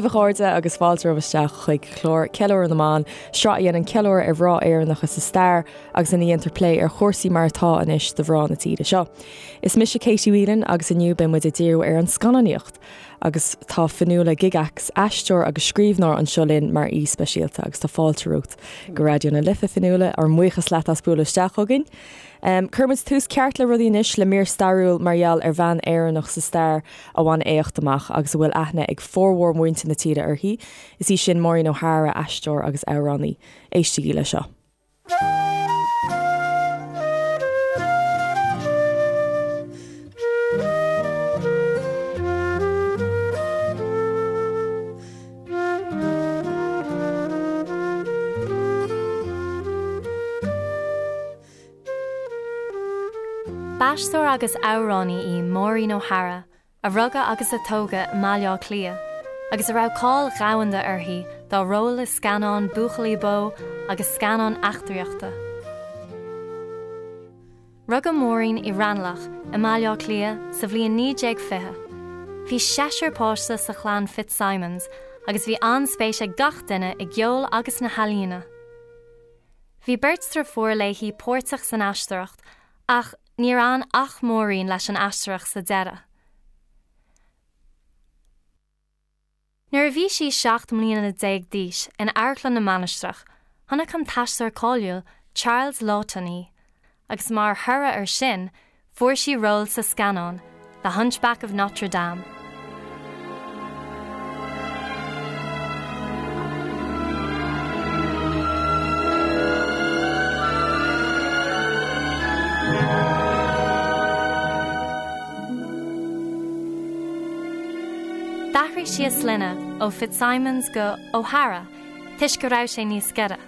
daoibh a chairde agus fáilte romhaibh isteach chuig clár Ceiliúradh na mBan, sraith a dhéanann ceiliúradh ar mhná Éireannacha sa stair agus ina dhéantar plé ar chúrsaí mar atá anois do mhná na tíre seo. Is mise Katie Whelan agus inniu beidh muid ag díriú ar an scannánaíocht agus tá Fionnuala Gygax, aisteoir agus scríbhneoir anseo linn mar aoi speisialta agus tá fáilte romhat go Raidió na Life, a Fionnuala, ár mbuíochas leat as bualadh isteach chugainn. Cuirfidh muid tús ceart le rudaí anois le mír stairiúil mar gheall ar bhean Éireannach sa stair a bhain éacht amach agus a bhfuil aithne ag formhór mhuintir na tíre uirthi. Is í sin Maureen O'Hara, aisteoir agus amhránaí. Éistigí le seo. B'aisteoir agus amhránaí í Maureen O'Hara, a rugadh agus a tógadh i mBaile Átha Cliath, agus a raibh cáil dhomhanda uirthi dá róil i scannáin buachaillí bó agus scannáin eachtraíochta. Rugadh Maureen i Raghnallach i mBaile Átha Cliath sa bhliain 1920. Bhí seisear páiste sa chlann Fitzsimons agus bhí an-spéis ag gach duine i gceol agus sna healaíona. Bhí beirt driofúr léi páirteach san aisteoireacht ach níor fhan ach Maureen leis an aisteoireacht sa deireadh. Nuair a bhí sí 17 mbliana d'aois in Amharclann na Mainistreach, chonaic an t-aisteoir cáiliúil Charles Laughton í agus mar thoradh air sin Fuair sí ról sa scannán The Hunchback of Notre Dame. D'athraigh sí a sloinne ó Fitzsimons go O'Hara toisc go raibh sé níos giorra.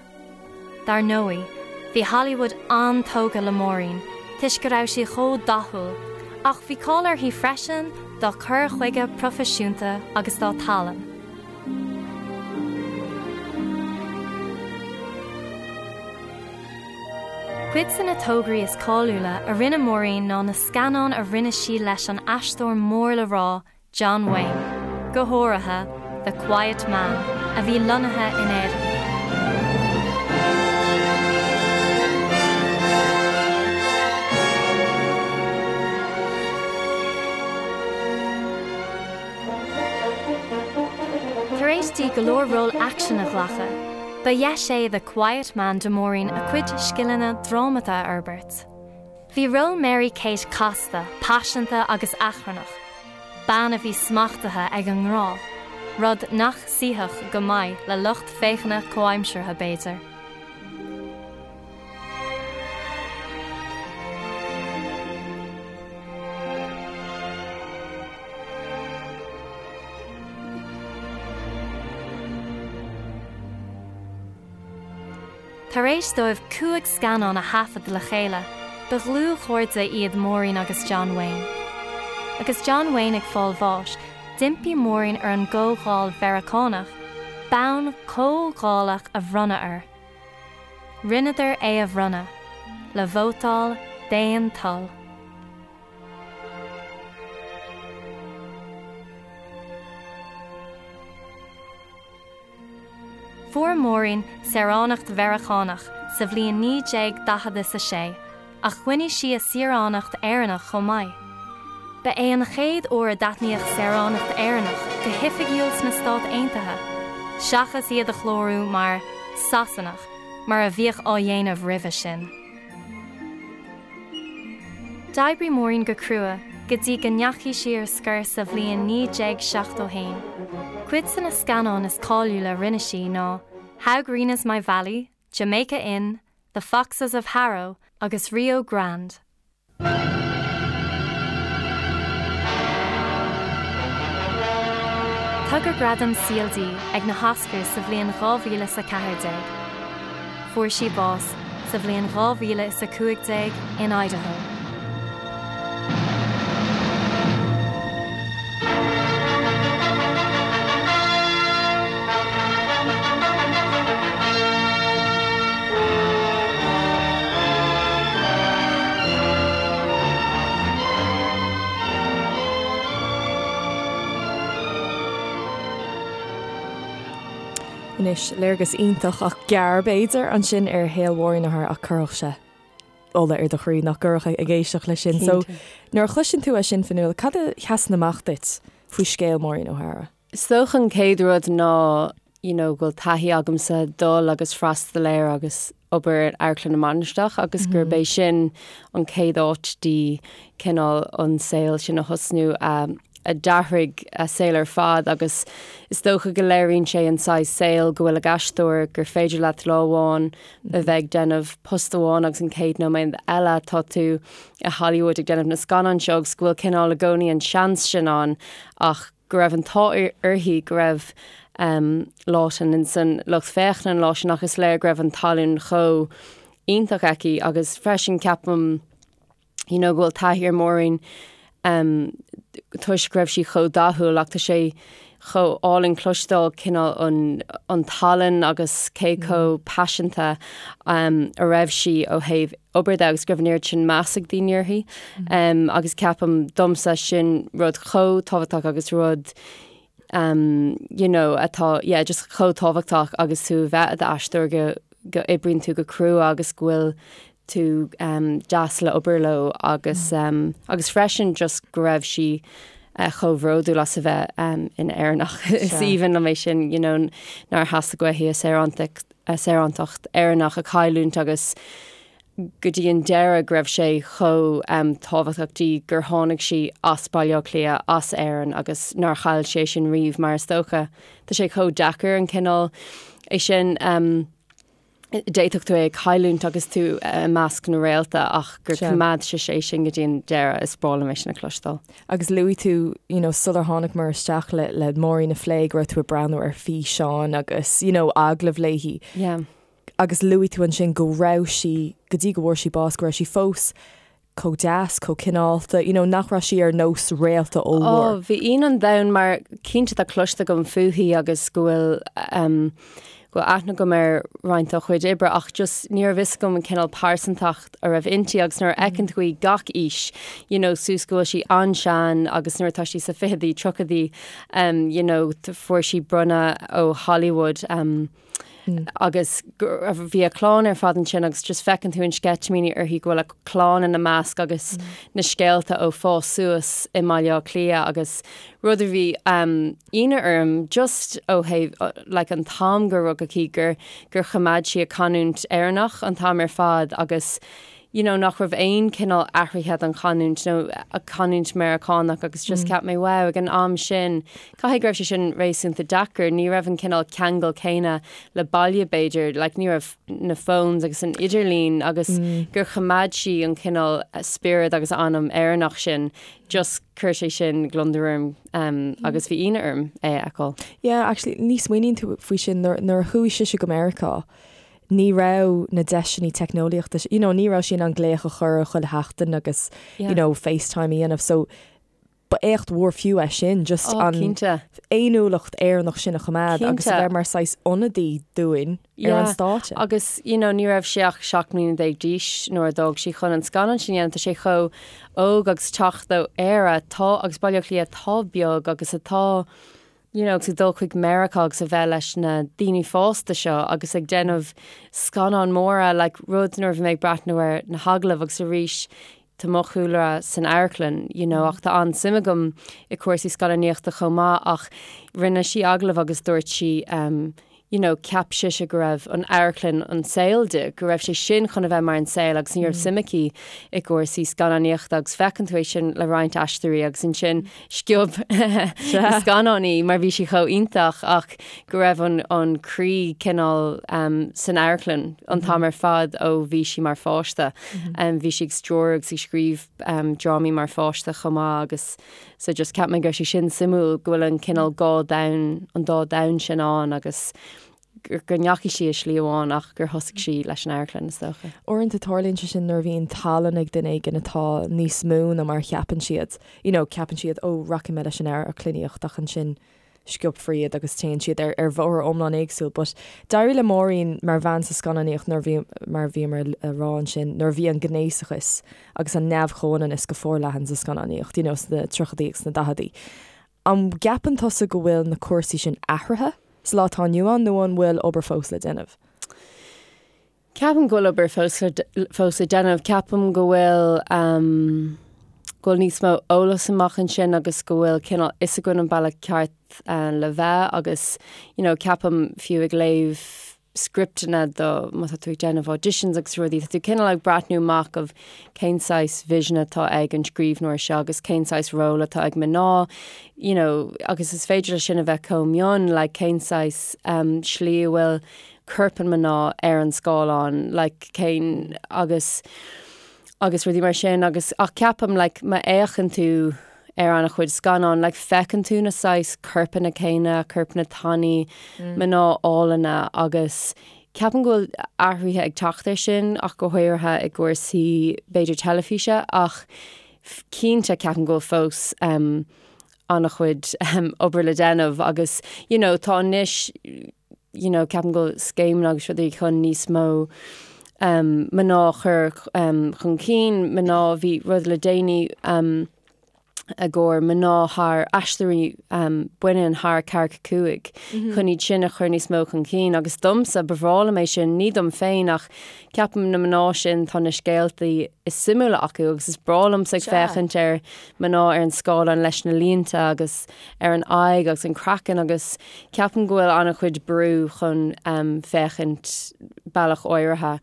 Dar ndóigh, bhí Hollywood an-tógtha le Maureen toisc go raibh sí chomh dathúil, ach bhí cáil uirthi freisin dá cur chuige proifisiúnta agus dá tallann. Cuid de na tograí is cáiliúla a rinne Maureen ná na scannáin a rinne sí leis an aisteoir mór le rá John Wayne, go háirithe The Quiet Man, a bhí lonnaithe in Éirinn. Tar éis di go leor ról aicsin a ghlacadh, ba dheis é The Quiet Man do Maureen a cuid scileanna drámata a fhorbairt. Bhí ról Mary Kate casta, paiseanta agus achrannach, bean a bhí smachtaithe ag an ngrá, rud nach suífeadh go maith le lucht féachana comhaimseartha, b'fhéidir. Tar éis dóibh 5 scannán a thaifead le chéile, ba dhlúthchairde iad Maureen agus John Wayne. Agus John Wayne ag fáil bháis, d'impigh Maureen ar an gComhdháil Mheiriceánach bonn comhdhálach a bhronnadh air. Rinneadar é a bhronnadh, le vótáil d'aon toil. Fuair Maureen saoránacht Mheiriceánach sa bhliain 1946 ach choinnigh sí a saoránacht Éireannach chomh maith. Ba é an chéad uair a d'aithníodh saoránacht Éireannach go hoifigiúil sna Stáit Aontaithe, seachas iad a chlárú mar 'Sasanach' mar a bhíodh á dhéanamh roimhe sin. D'oibrigh Maureen go crua go dtí go ndeachaigh sí ar scor sa bhliain 1971. Cuid de na scannáin is cáiliúla a rinne sí ná How Green Is My Valley, Jamaica Inn, The Foxes of Harrow agus Rio Grande. Tugadh gradam saoil di ag na hOscars sa bhliain 2014. Fuair sí bás sa bhliain 2015 in Idaho. Anois, léargas iontach ach gearr, b'fhéidir, ansin ar shaol Mháirín O'Hara ach chuirfeadh sé ola ar do chroí nach gcuirfeadh ag éisteacht leis sin. So, nuair a chloiseann tú é sin, Fionnuala, cad a sheasann amach duit faoi scéal Mháirín O'Hara? Is dócha an chéad rud ná you know go bhfuil taithí agamsa dul agus freastal ar agus obair ar Amharclann na Mainistreach agus gurb é sin an chéad áit di cineál an saol sin a thosnú a a d'athraigh a saol ar fad agus is dócha go léiríonn sé an saghas saol go bhfuil ag aisteoir gur féidir leat lá amháin a bheith ag déanamh post amháin agus an chéad nóiméad eile tá tú i Hollywood ag déanamh na scannán seo agus go bhfuil cineál i gcónaí an seans sin ann ach go raibh an t-ádh uirthi go raibh Laughton in san lucht féachana an lá sin ach is léir go raibh an tallann chomh iontach aici agus freisin ceapaim you know go bhfuil taithí ar Maureen toisc go raibh sí chomh dathúil ach tá sé chomh álainn cloisteáil cineál an an tallann agus cé chomh paiseanta a raibh sí ó thaobh obair de agus go raibh an oiread sin meas ag daoine uirthi. Agus ceapaim domsa sin rud chomh tábhachtach agus rud you know atá yeah just chomh tábhachtach agus tú a bheith i d'aisteoir go go oibríonn tú go crua agus go bhfuil tú deas le obair leo agus agus freisin just go raibh sí chomh bhródúil as a bheith ina Éireannach. Is aoibhinn liom é sin you know nár theastaigh uaithi a saorántacht a saorántacht Éireannach a chailliúint agus go dtí an deireadh go raibh sé chomh tábhachtach di gur tháinig sí as Baile Átha Cliath, as Éirinn agus nár chaill sí é sin riamh mar is dócha tá sé chomh deacair an cineál é sin d'fhéadfadh tú é a chailliúint agus tú i measc na réalta ach gur choimeád sise é sin go dtí an deireadh is breá liom é sin a chloisteáil. Agus luaigh tú, you know, sular tháinigmar isteach le, le Máirín a phlé go raibh tú ag breathnú ar físeáin agus, you know, agallaimh léi. Yeah. Agus luaigh tú ansin go raibh sí, go dtí go bhfuair sí bás, go raibh sí fós chomh deas, chomh cineálta, you know, nach raibh sí ar nós réalta ollmhór. Oh, bhí ionadh an domhain mar cinnte tá cloiste agam fúithi agus go bhfuil um, go bhfuil aithne agam ar roinnt dá chuid oibre ach just ní raibh fhios agam an cineál pearsantacht a raibh inti agus nuair a fheiceann tú í gach aois, you know, suas go bhfuil sí an-sean agus nuair atá sí sa ficheadaí, tríochadaí, um, you know, fuair sí bronnadh ó Hollywood um, agus bhí a clann ar fad ansin agus just feiceann tú an sceitimíní uirthi go bhfuil a clann ina measc agus na scéalta ó fás suas i mBaile Átha Cliath agus rud a bhí ionadh orm just ó thaobh like an t-am gur rugadh í gur gur choimeád sí a canúint Éireannach an t-am ar fad agus you know nach raibh aon cineál athraithe don chanúint nó a canúint Meiriceánach agus just cheap mé wow ag an am sin caithfidh go raibh sé sin réasúnta deacair ní raibh an cineál ceangal céanna le baile b'fhéidir like ní raibh na phones agus an idirlíon agus gur choimeád sí an cineál spiorad agus anam Éireannach sin just chuir sé sin gliondar orm agus bhí ionadh orm é a fheiceáil. Yeah, actually, ní smaoiníonn tú faoi sin nuair, nuair a chuaigh sise go Meiriceá, ní raibh na deiseanna teicneolaíochta, you know, ní raibh sí in ann glaoch a chur chuile sheachtain agus, yeah. you know, FaceTime a dhéanamh, so ba éacht mhór fiú é sin, just oh, an fhéiniúlacht Éireannach sin a choimeád agus a bheith mar saghas ionadaí dúinn ar an stáitse. Agus you know, ní raibh sí ach 17 mbliana d'aois nuair a d'fhág sí chun an scannán sin a dhéanamh, tá sé chomh óg agus teacht ó Éire tá agus Baile Átha Cliath atá beag agus atá you know, agus ag dul chuig Meiriceá agus a bheith leis na daoine fásta seo agus ag déanamh scannáin móra like rud nuair a bhí mé ag breathnú ar na hagallaimh agus arís tá mo chúlra san amharclann, you know, ach tá an-suim agam i cúrsaí scannánaíochta chomh maith ach rinne sí agallamh agus dúirt sí um, you know, cheap sise go raibh an amharclann an saol di, go raibh sé sin chun a bheith mar an saol agus ní raibh suim aici i gcúrsaí scannánaíochta agus feiceann tú é sin le roinnt aisteoirí agus ansin sciob na scannáin í mar bhí sí chomh iontach ach go raibh an, an croí cineál um, san amharclann an t-am ar fad ó bhí sí mar pháiste. Bhí sí ag stiúradh agus ag scríobh drámaí mar pháiste chomh maith agus so just cheap mé go raibh sé sin suimiúil go bhfuil an cineál dhá domhan, an dá domhan sin ann agus go ndeachaigh sí i slí amháin ach gur thosaigh sí leis an amharclann is dócha. Uaireanta tarlaíonn sé sin nuair a bhíonn tallann ag duine éigin atá níos mó ná mar a cheapann siad. You know, ceapann siad, oh, rachaidh mé leis an amharclannaíocht ach ansin sciobfar iad agus téann siad ar ar bhóthar iomlán éagsúil. But d'éirigh le Máirín mar bhean sa scannánaíocht nuair a bhí, mar a bhíomar a rá ansin, nuair a bhí an gnéasachas agus an neamh-chomhionannas go forleathan sa scannánaíocht, you know, sna tríochaidí agus sna daicheadaí. An gceapann tusa go bhfuil na cúrsaí sin athraithe? sa lá atá inniu ann nó an bhfuil obair fós le déanamh? Ceapaim go bhfuil obair fós le fós le déanamh. Ceapaim go bhfuil ehm go bhfuil níos mó eolas amach ansin agus go bhfuil cineál fhios againn an bealach ceart le bheith agus you know ceapaim fiú ag léamh scripteanna do má tá tú ag déanamh auditions agus rudaí tá tú cineál ag breathnú amach of cén saghas vision atá ag an scríbhneoir seo agus cén saghas ról atá ag mná you know agus is féidir leis sin a bheith chomh mion like cén saghas um slí a bhfuil corp an mná ar an scáileán like cén agus agus rudaí mar sin agus ach ceapaim like má fhéachann tú ar an-chuid scannán like feiceann tú na saghas corpanna céanna, corpanna tanaí, mná álainne agus ceapaim go bhfuil athruithe ag teacht ar sin ach go háirithe i gcúrsaí b'fhéidir teilifíse ach cinnte ceapaim go bhfuil fós um, an-chuid um, obair le déanamh agus you know, tá anois you know, ceapaim go bhfuil scéimeanna agus rudaí chun níos mó um, mná a chur um, chun cinn, mná bhí rud le déanaí um, i gcomhair mná thar aisteoirí um, baineann thar 45 mm -hmm. chun iad sin a chur níos mó chun cinn agus domsa ba bhreá liom é sin ní dom féin ach ceapaim na mná sin tá na scéaltaí is suimiúla acu agus is breá liomsa ag féachaint ar mná ar an scáileán leis na línte agus ar an aghaidh agus an craiceann agus Ceapaim go bhfuil an-chuid brú chun féachaint bealach áirithe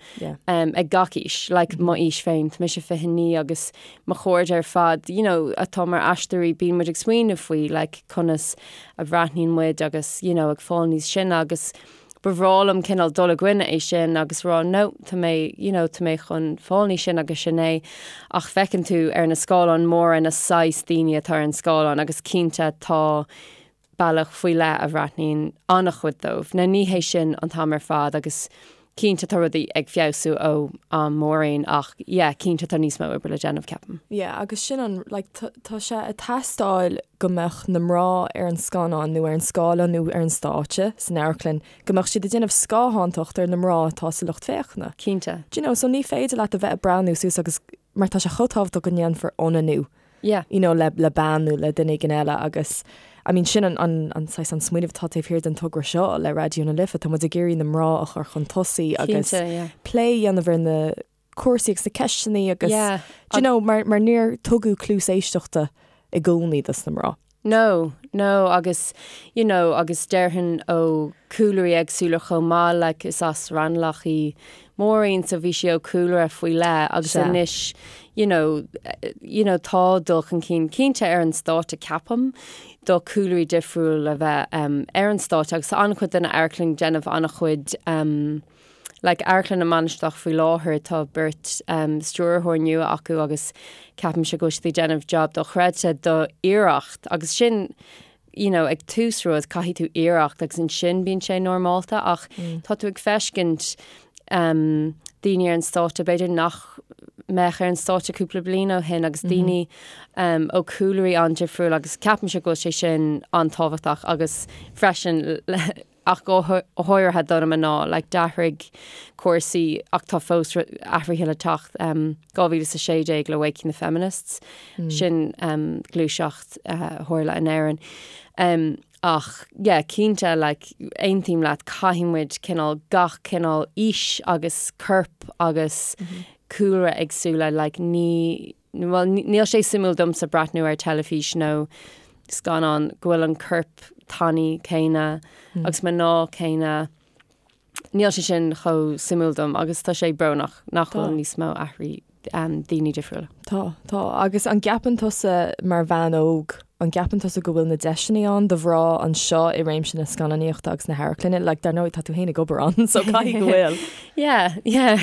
ag gach aois, like mo aois féin, tá mise 29 agus mo chairde ar fad, you know, atá mar aisteoirí, bíonn muid ag smaoineamh faoi like conas a bhreathnaíonn muid agus, you know, ag fáil níos sine agus ba bhreá liom cineál dul i gcoinne é sin agus rá no, tá mé, you know, tá mé chun fáil níos sine agus sin é. Ach feiceann tú ar na scáileáin móra na saghas daoine atá ar an scáileán agus cinnte tá bealach faoi leith a bhreathnaíonn an-chuid dóibh. Now ní hé sin an t-am ar fad agus cinnte tá rudaí ag feabhsú ó am Maureen ach yeah cinnte tá níos mó oibre le déanamh ceapaim. Yeah agus sin an like tá sé ag teastáil go mbeadh na mná ar an scannán nó ar an scáileán nó ar an stáitse san amharclann go mbeadh siad ag déanamh scáthántacht ar na mná atá sa lucht féachana. Cinnte. Do you know so ní féidir leat a bheith ag breathnú suas agus mar tá sé chomh tábhachtach go ndéanfar ionannú Yeah. you know, le, le bean nó le duine éigin eile agus I mean sin an, an, an saghas an smaoineamh atá taobh thiar den togra seo le Raidió na Life, tá muid ag iarraidh na mná a chur chun tosaigh agus Cinnte, yeah. plé a dhéanamh ar na cúrsaí agus na ceisteanna agus Yeah. do you know, mar, mar níor tugadh cluas éisteachta i gcónaí dos na mná. No, no, agus, you know, agus déarfainn ó cúlraí éagsúla chomh maith, like, is as Raghnallach í Maureen, so bhí sí ó cúlra faoi leith agus Sea. anois, you know, you know, tá dul chun cinn cinnte ar an stáitse ceapaim, do cúlraí difriúil a bheith um, ar an stáitse agus tá an-chuid den amharclann ag déanamh an-chuid um, Like Amharclann na Mainistreach faoi láthair tá beirt stiúrthóir nua acu agus ceapaimse go bhfuil siad ag déanamh job dochreidte do iarracht agus sin you know ag tús rud caithfidh tú iarracht agus ansin bíonn sé normálta ach tá tú ag feiscint um, daoine ar an stáitse b'fhéidir nach mbeadh ar an stáitse cúpla bliain ó shin agus daoine um, ó cúlraí an-difriúil agus ceapaimse go bhfuil sé sin an-tábhachtach agus freisin ach go háirithe do na mná, like d'athraigh cúrsaí ach tá fós athruithe le teacht, 2016 le Waking the Feminists, sin gluaiseacht a tharla in Éirinn. Ach yeah, cinnte, like aontaím leat, caithfidh muid cineál gach cineál aois agus corp agus cúlra éagsúla, like ní, Bhuel, níl sé suimiúil domsa breathnú ar teilifís nó scannán go bhfuil an corp tanaí céanna agus mná céanna. Níl sé sin chomh suimiúil dom agus tá sé brónach nach bhfuil níos mó athraí daoine difriúla. Tá, tá. Agus an gceapann tusa mar bhean óg, an gceapann tusa go bhfuil na deiseanna ann do mhná anseo i réimse na scannánaíochta agus na hamharclainne? Like, dar ndóigh, tá tú féin ag obair ann, so caithfidh go bhfuil. Yeah, yeah.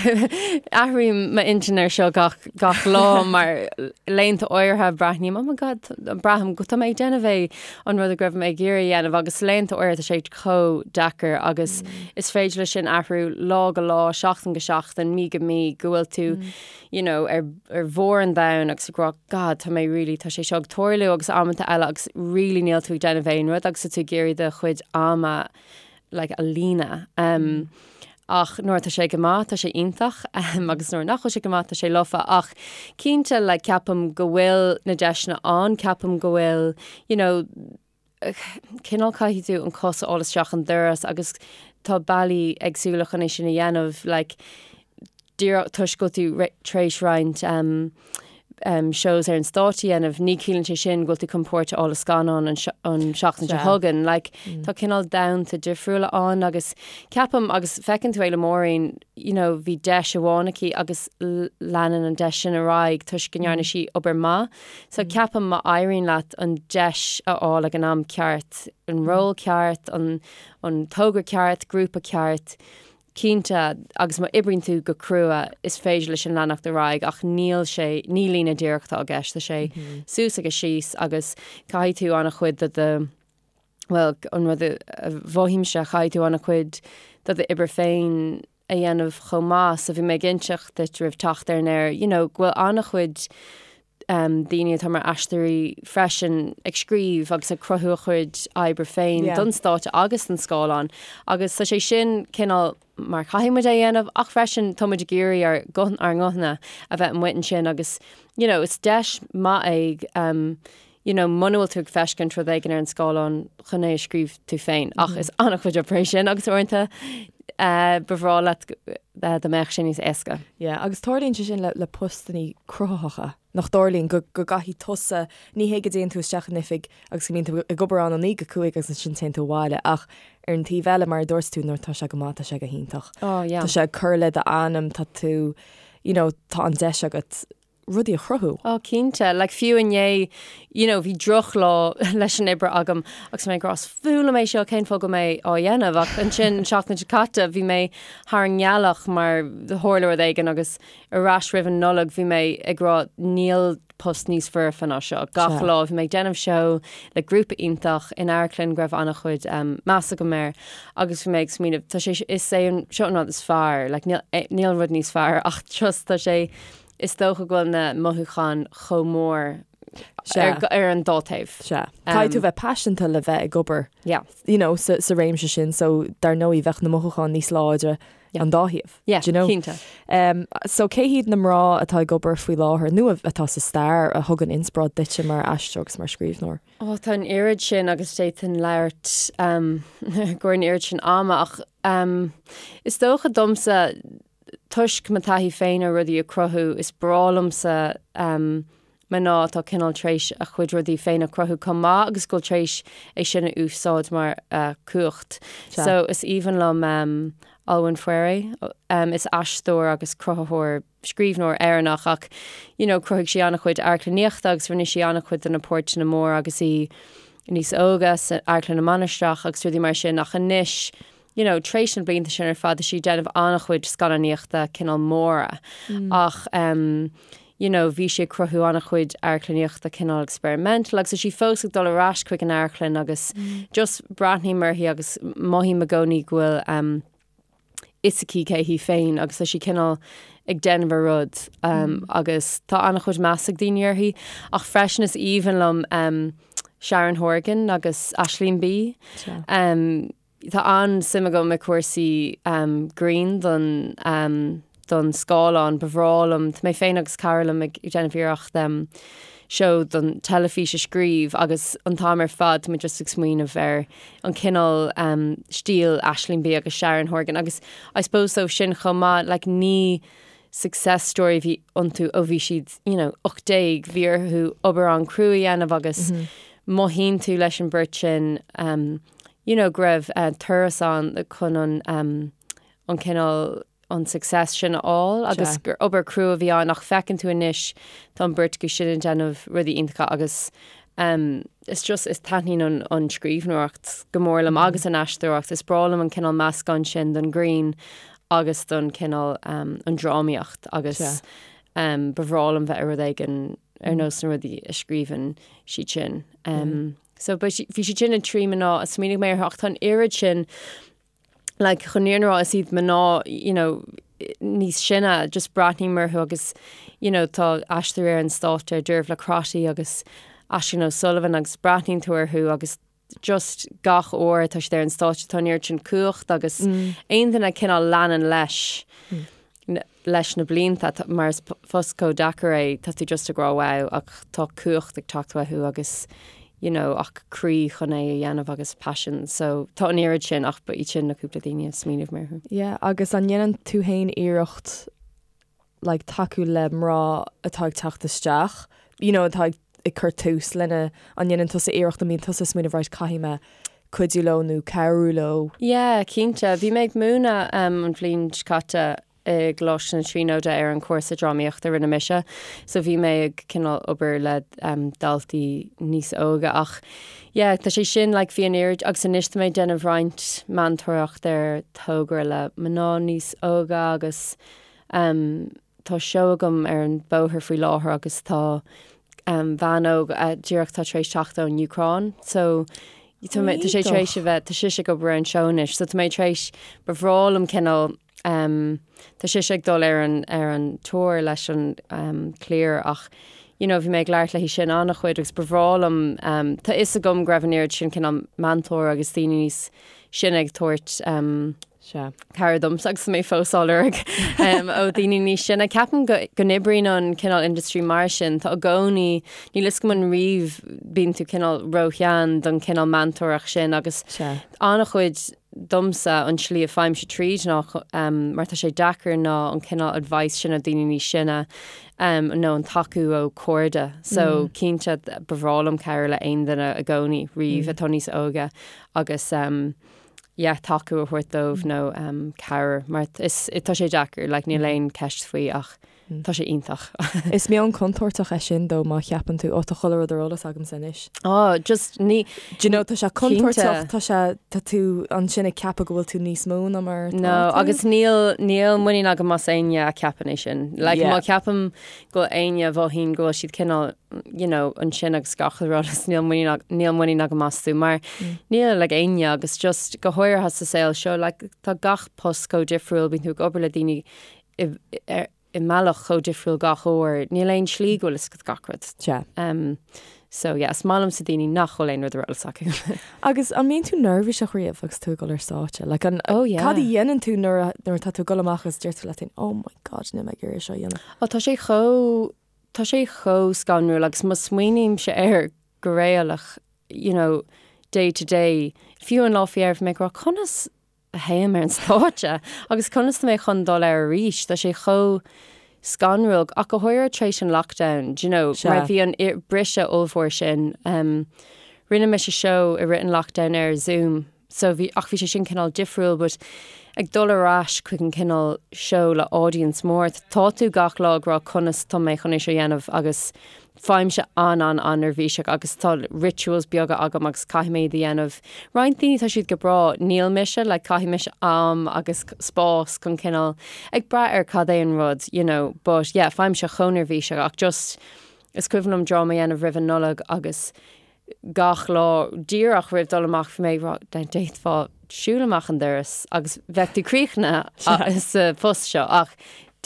Athraím m'intinn ar seo gach, gach lá mar laethanta áirithe breathnaím, oh my God, braithim go tá mé ag déanamh é an rud a go raibh mé ag iarraidh a dhéanamh agus laethanta áirithe tá sé chomh deacair agus is féidir leis sin athrú lá go lá, seachtain go seachtain, mí go mí, go bhfuil tú, you know, ar, ar bharr an domhain agus ag rá, God, tá mé really, tá sé seo ag tarlú agus amanta eile agus really níl tú ag déanamh aon rud agus tá tú ag iarraidh do chuid ama like, a líonadh. Um, ach nuair atá sé go maith, tá sé iontach, um, agus nuair nach bhfuil sé go maith, tá sé lofa. Ach cinnte, like, ceapaim go bhfuil na deiseanna ann, ceapaim go bhfuil, you know, Cineál caithfidh tú an cos a fháil isteach an doras agus tá bealaí éagsúla chun é sin a dhéanamh, like, díreach toisc go bhfuil tú tar éis roinnt um, um, shows ar an stáitse a dhéanamh, ní chiallaíonn sé sin go bhfuil tú chun páirt a fháil i scannán an, an seachtain seo chugainn. Like, mm. Tá cineál domhanta difriúla ann agus ceapaim agus feiceann tú é le Maureen, you know, bhí deis amháin aici agus leanann an deis sin ar aghaidh toisc go ndearna sí obair maith. So ceapaim má éiríonn leat an deis a fháil ag an am ceart, an ról ceart, an an togra ceart, grúpa ceart, cinnte, agus má oibríonn tú go crua, is féidir leis sin leanacht ar aghaidh ach níl sé, ní líne díreach atá i gceist, tá sé suas agus síos agus caithfidh tú an-chuid de do, bhuel, an rud a mhothaímse, caithfidh tú an-chuid de d'obair féin a dhéanamh chomh maith. So bhí mé ag inseacht duit roimh teacht ar an aer, you know, go bhfuil an-chuid um, daoine atá mar aisteoirí freisin ag scríobh agus ag cruthú a chuid oibre féin yeah. don stáitse agus don scáileán. Agus tá sé sin cineál mar caithfidh muid é a dhéanamh ach freisin tá muid ag iarraidh ár ár nguthanna a bheith amuigh ansin agus you know, is deis maith é um, you know, muna bhfuil tú ag feiscint rud éigin ar an scáileán chun é a scríobh tú féin, ach is an-chuid oibre é sin agus uaireanta eh, ba bhreá leat eh, dá mbeadh sé níos éasca. Yeah, agus tarlaíonn sé sin le, le postannaí cruthaitheacha, nach dtarlaíonn go, go gcaithfidh tusa, ní hé go dtéann tú isteach in oifig agus go mbíonn tú ag obair ann ó 9 go 5 agus ansin téann tú abhaile, ach ar an taobh eile, mar a dúirt tú, nuair atá sé go maith, tá sé go hiontach. Oh, yeah. Tá sé ag cur le d'ainm, tá tú, you know, tá an deis agat rudaí a chruthú. Oh cinnte, like fiú inné, you know, bhí drochlá leis an oibre agam agus mé ag rá is fuath liom é seo cén fáth go bhfuil mé á dhéanamh ach ansin an seachtain seo caite bhí mé thar an ngealach mar tharla rud éigin agus ar ais roimh an Nollaig bhí mé ag rá níl post níos foirfe ná seo. Gach lá bhí mé ag déanamh seó le grúpa iontach in amharclann go raibh an-chuid um, meas agam air agus bhí mé ag smaoineamh tá sé is é an seo an rud is fearr, like, níl, eh, níl rud níos fearr ach just tá sé Is dócha go bhfuil na mothúcháin chomh mór ar an dá taobh. Sea. Caithfidh tú bheith paiseanta le bheith ag obair yeah. you know, sa, sa réimse sin, so dar ndóigh bheadh na mothúcháin níos láidre yeah. an dá thaobh. Yeah, you know? cinnte. Um, so cé hiad na mná atá ag obair faoi láthair nó atá sa stair a thugann inspioráid duitse mar aisteoir agus mar scríbhneoir? Oh, tá an oiread sin agus d'fhéadfainn labhairt um, go an oiread sin ama ach um, is dócha domsa toisc mo taithí féin ar rudaí a cruthú, is breá liomsa mná atá cineál tar éis a chuid rudaí féin a cruthú chomh maith agus go bhfuil tar éis é sin a úsáid mar cumhacht. So is aoibhinn liom Olwen Fouéré, is aisteoir agus cruthaitheoir, scríbhneoir Éireannach ach you know chruthaigh sí an-chuid amharclannaíochta agus rinne sí an-chuid de na páirteanna móra agus í níos óige san Amharclann na Mainistreach agus rudaí mar sin ach anois you know, tar éis na blianta sin ar fad, tá sí ag déanamh an-chuid scannánaíochta cineál móra ach um, you know, bhí sí ag cruthú an-chuid amharclannaíochta cineál experimental agus tá sí fós ag dul ar ais chuig an amharclann agus just breathnaím uirthi agus mothaím i gcónaí go bhfuil um, fhios aici cé hí féin agus tá sí cineál ag déanamh a rud um, agus tá an-chuid meas ag daoine uirthi ach freisin is aoibhinn liom um, Sharon Horgan agus Aisling Bea. Um, Tá an-suim agam i cúrsaí grinn don don scáileán. Ba bhreá liom, tá mé féin agus cara liom ag déanamh iarracht seó don teilifís a scríobh agus an t-am ar fad tá muid just ag smaoineamh ar an cineál stíl Aisling Bea agus Sharon Horgan agus I suppose dóibh sin chomh maith like ní success story a bhí iontu ó bhí siad you know 18, bhí orthu obair an-chrua a dhéanamh agus mothaíonn tú leis an bheirt sin you know, go raibh turas ann chun an, an cineál, an success sin a fháil agus gur obair crua a bhí ann ach feiceann tú anois tá an bheirt acu sin ag déanamh rudaí iontacha agus is just, is taitníonn an, an scríbhneoireacht go mór liom agus an aisteoireacht. Is breá liom an cineál meascán sin don ghreann agus don cineál an drámaíocht agus ba bhreá liom bheith i rud éigin ar nós na rudaí a scríobhann siad sin. So bhí siad sin na trí mná a smaoinigh mé orthu ach tá an oiread sin like chun an fhírinne a rá is iad mná you know níos sine just breathnaím orthu agus you know tá aisteoirí ar an stáitse Dervla Crotty agus Aisling O'Sullivan agus breathnaíonn tú orthu agus just gach uair atá siad ar an stáitse tá an oiread sin cumhacht agus aon duine cineál leanann leis leis na blianta, mar is post chomh deacair é, tá tú just ag rá wow ach tá cumhacht ag teacht uathu agus you know, ach croí chun é a dhéanamh agus paisean. So tá an oiread sin ach ba iad sin na cúpla daoine a smaoinigh mé orthu. Yeah, agus an ndéanann tú féin iarracht like tacú le mná atá ag teacht isteach, you know, atá ag ag cur tús lena, an ndéanann tusa iarracht, an mbíonn tusa ag smaoineamh right caithfidh mé cuidiú leo nó cabhrú leo? Yeah, cinnte. Bhí mé ag múineadh um, an bhliain seo caite i gColáiste na Tríonóide ar an chúrsa drámaíochta a rinne mise. So bhí mé ag cineál obair le um, daltaí níos óige ach yeah, tá sé sin like, bhí an oiread agus anois tá mé ag déanamh roinnt meantóireacht ar togra le mná níos óige agus um, tá seó agam ar an bóthar faoi láthair agus tá um, bhean óg uh, díreach tá tar éis teacht ón Úcráin so tá mé- tá sé tar éis a bheith tá sise ag obair ar an seó anois so tá mé tar éis ba bhreá liom cineál Um, tá sise ag dul ar an, ar an tour leis an um, cliar ach you know, bhí mé ag labhairt léi sin an-chuid agus ba bhreá liom um, tá fhios agam go raibh an oiread sin cineál meantóir agus daoine níos sine ag tabhairt um, Sea. cabhair domsa agus mé fós á lorg um, ó daoine níos sine. Ceapaim go, go n-oibríonn an cineál industry mar sin, tá i gcónaí, níl fhios agam an riamh bíonn tú cineál róshean don cineál meantóireacht sin agus Sea. an-chuid domsa an tslí a faighimse tríd ná mar tá sé deacair ná an cineál advice sin ó daoine níos sine nó an tacú ó cairde. So cinnte ba bhreá liom cabhrú le aon duine i gcónaí riamh atá níos óige agus yeah tacú a thabhairt dóibh nó cabhair mar is tá sé deacair like níl aon ceist faoi ach Tá sé iontach. Is meon contúirteach é sin though má cheapann tú, ó tá chuile rud ar eolas agamsa anois. Á, just ní. Do you know, tá sé contúirteach, tá sé, tá tú ansin ag ceapadh go bhfuil tú níos mó ná mar atá No, tú. agus níl, níl muinín agam as éinne a cheapann é sin. Like, Yeah. má cheapaim go bhfuil éinne a mhothaíonn go bhfuil siad cineál, you know, ansin agus gach rud is níl muinín, níl muinín agam astu mar níl ag éinne agus just go háirithe sa saol seo, like, tá gach post chomh difriúil, bíonn tú ag obair le daoine i i mbealach chomh difriúil gach uair, níl aon slí go bhfuil fhios agat gach rud. Sea. Um, so yeah, is maith liomsa daoine nach bhfuil aon rud ar eolas acu. Agus an mbíonn tú neirbhíseach riamh agus tú ag dul ar stáitse? Like, an, Oh, yeah. Cad a dhéanann tú nuair a, nuair atá tú ag dul amach agus deir tú leat féin, oh my god, níl mé ag iarraidh seo a dhéanamh. Ó, tá sé chomh, tá sé chomh scanrúil agus má smaoinímse air go réalach, you know, day to day, fiú an lá faoi dheireadh bhí mé ag rá, conas a théim ar an stáitse agus conas tá mé chun dul air arís, tá sé chomh scanrúil, ach go háirithe tar éis an lockdown, do you know, mar bhí an briseadh ollmhór sin. Um, rinne mise seó i rith an lockdown ar Zoom, so bhí, ach bhí sé sin cineál difriúil, but ag dul ar ais chuig an cineál seó le audience mór, tá tú gach lá ag rá conas tá mé chun é seo a dhéanamh agus Faighimse an-an-an-neirbhíseach agus tá rituals beaga agam agus caithfidh mé iad a dhéanamh. Roinnt daoine tá siad go breá, níl mise, like caithfidh mise am agus spás chun cineál, ag brath ar cad é an rud, you know, but yeah, faighimse chomh neirbhíseach ach just, is cuimhin liom dráma a dhéanamh roimh an Nollaig agus gach lá díreach roimh dul amach bhí mé ag rá, d'fhéadfá siúl amach an doras agus bheadh tú críochnaithe sa phost seo ach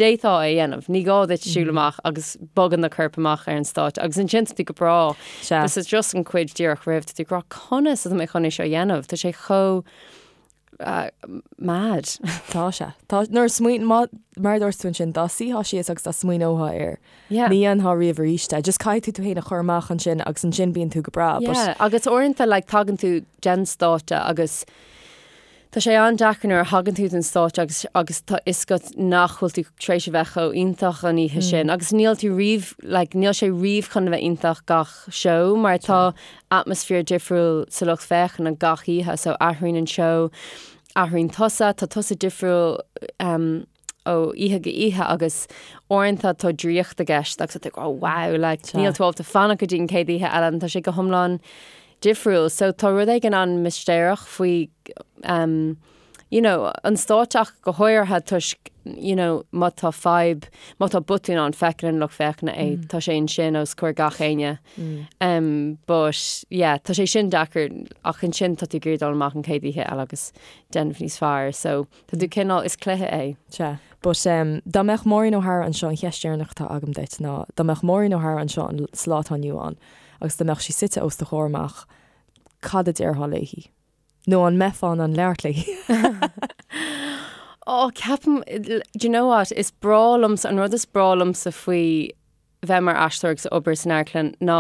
d'fhéadfá é a dhéanamh, ní gá duit siúl amach agus bogadh do chorp amach ar an stáitse agus ansin tá tú go breá. Is just an chuid díreach roimh, tá tú ag rá conas atá mé chun é seo a dhéanamh, tá sé chomh mad. Tá sé. Tá, nuair a smaoin, má, mar a dúirt tú ansin, dá suífeá síos agus dá smaoineofá air, Yeah. ní dhéanfá riamh arís é. Just caithfidh tú tú féin a chur amach ansin agus ansin bíonn tú go breá. But Yeah, agus uaireanta like tagann tú den stáitse agus tá sé an-deacair nuair a thagann tú den stáitse agus agus tá fhios agat nach bhfuil tú tar éis a bheith chomh iontach an oíche sin agus níl tú riamh like níl sé riamh chun a bheith iontach gach seó mar tá atmaisféar difriúil sa lucht féachana gach oíche so athraíonn an seó, athraíonn tusa, tá tusa difriúil um, ó oíche go oíche agus uaireanta tá draíocht i gceist agus tá tú ag rá wow like níl tú ábalta fanacht go dtí an chéad oíche eile and tá sé go hiomlán difriúil so tá rud éigin an-mistéireach faoi um, you know, an stáitse ach go háirithe toisc, you know, má tá fadhb, má tá botún ann, feiceann an lucht féachana é, tá sé ansin os comhair gach éinne. Um, but, yeah, tá sé sin deacair ach ansin tá tú ag iarraidh dul amach an chéad oíche eile agus déanamh níos fearr, so tá tú cineál, is cluiche é. Sea. But, um, dá mbeadh Maureen O'Hara anseo, an cheist dheireanach atá agam duit ná, dá mbeadh Maureen O'Hara anseo an, sa lá atá inniu ann agus dá mbeadh sí suite os do chomhair amach, cad a déarfá léi? Nó an mbeifeá in ann labhairt léi? Ó, ceapaim, do you know what, is breá liomsa, an rud is breá liomsa faoi bheith mar aisteoir agus obair san amharclann ná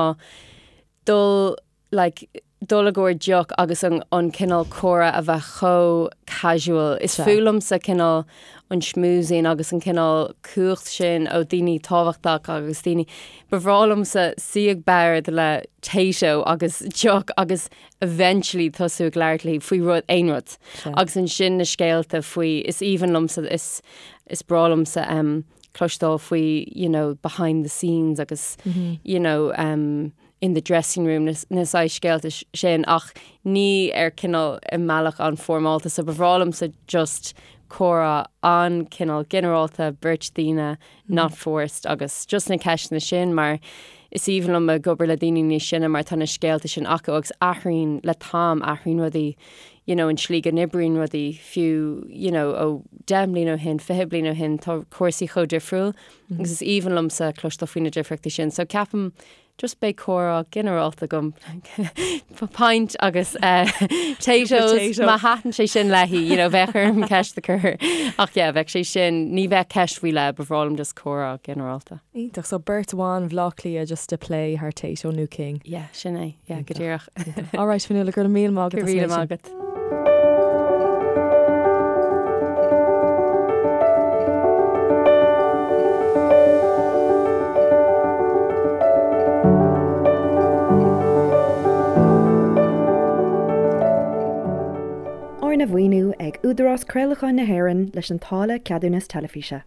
dul like, dul i gcomhair deoch agus an, an cineál comhrá a bheith chomh casual. Is fuath liomsa cineál an schmoozing agus an cineál cumhacht sin ó daoine tábhachtach agus daoine, ba bhreá liomsa suí ag bord le Tayto agus deoch agus eventually tosú ag labhairt léi faoi rud, aon rud. Agus ansin na scéalta faoi, is aoibhinn liomsa, is, is breá liomsa um, cloisteáil faoi, you know, behind the scenes agus, mm -hmm. you know, um, in the dressing room, na, na saghas scéalta sin, ach ní ar cineál i mbealach an-fhoirmeálta, so ba bhreá liomsa just comhrá an-cineál ginearálta, beirt daoine, not forced agus just na ceisteanna sin mar is aoibhinn liom ag obair le daoine níos sine mar tá na scéalta sin acu agus athraíonn le t-am, athraíonn rudaí, you know, an tslí go n-oibríonn rudaí fiú, you know, ó 10 mbliana ó shin, 20 bliain ó shin, tá cúrsaí chomh difriúil agus is aoibhinn liomsa cloisteáil faoi na difríochtaí sin. So ceapaim Just beidh comhrá ginearálta agam. Pint agus Taytos, má thaitin sé sin léi, you know, bheadh orm ceist a chur. Ach yeah, bheadh sé sin, ní bheadh ceist faoi leith, ba bhreá liom just comhrá ginearálta. Iontach, so beirt bhan Bhaile Átha Cliath just ag plé thar Tayto nó King. Yeah, sin é, yeah, go díreach. All right, Fionnuala, go raibh míle maith agat. Go raibh míle maith agat. Arna mhaoiniú ag Údarás Craolacháin na hÉireann leis an táille Ceadúnas Teilifíse.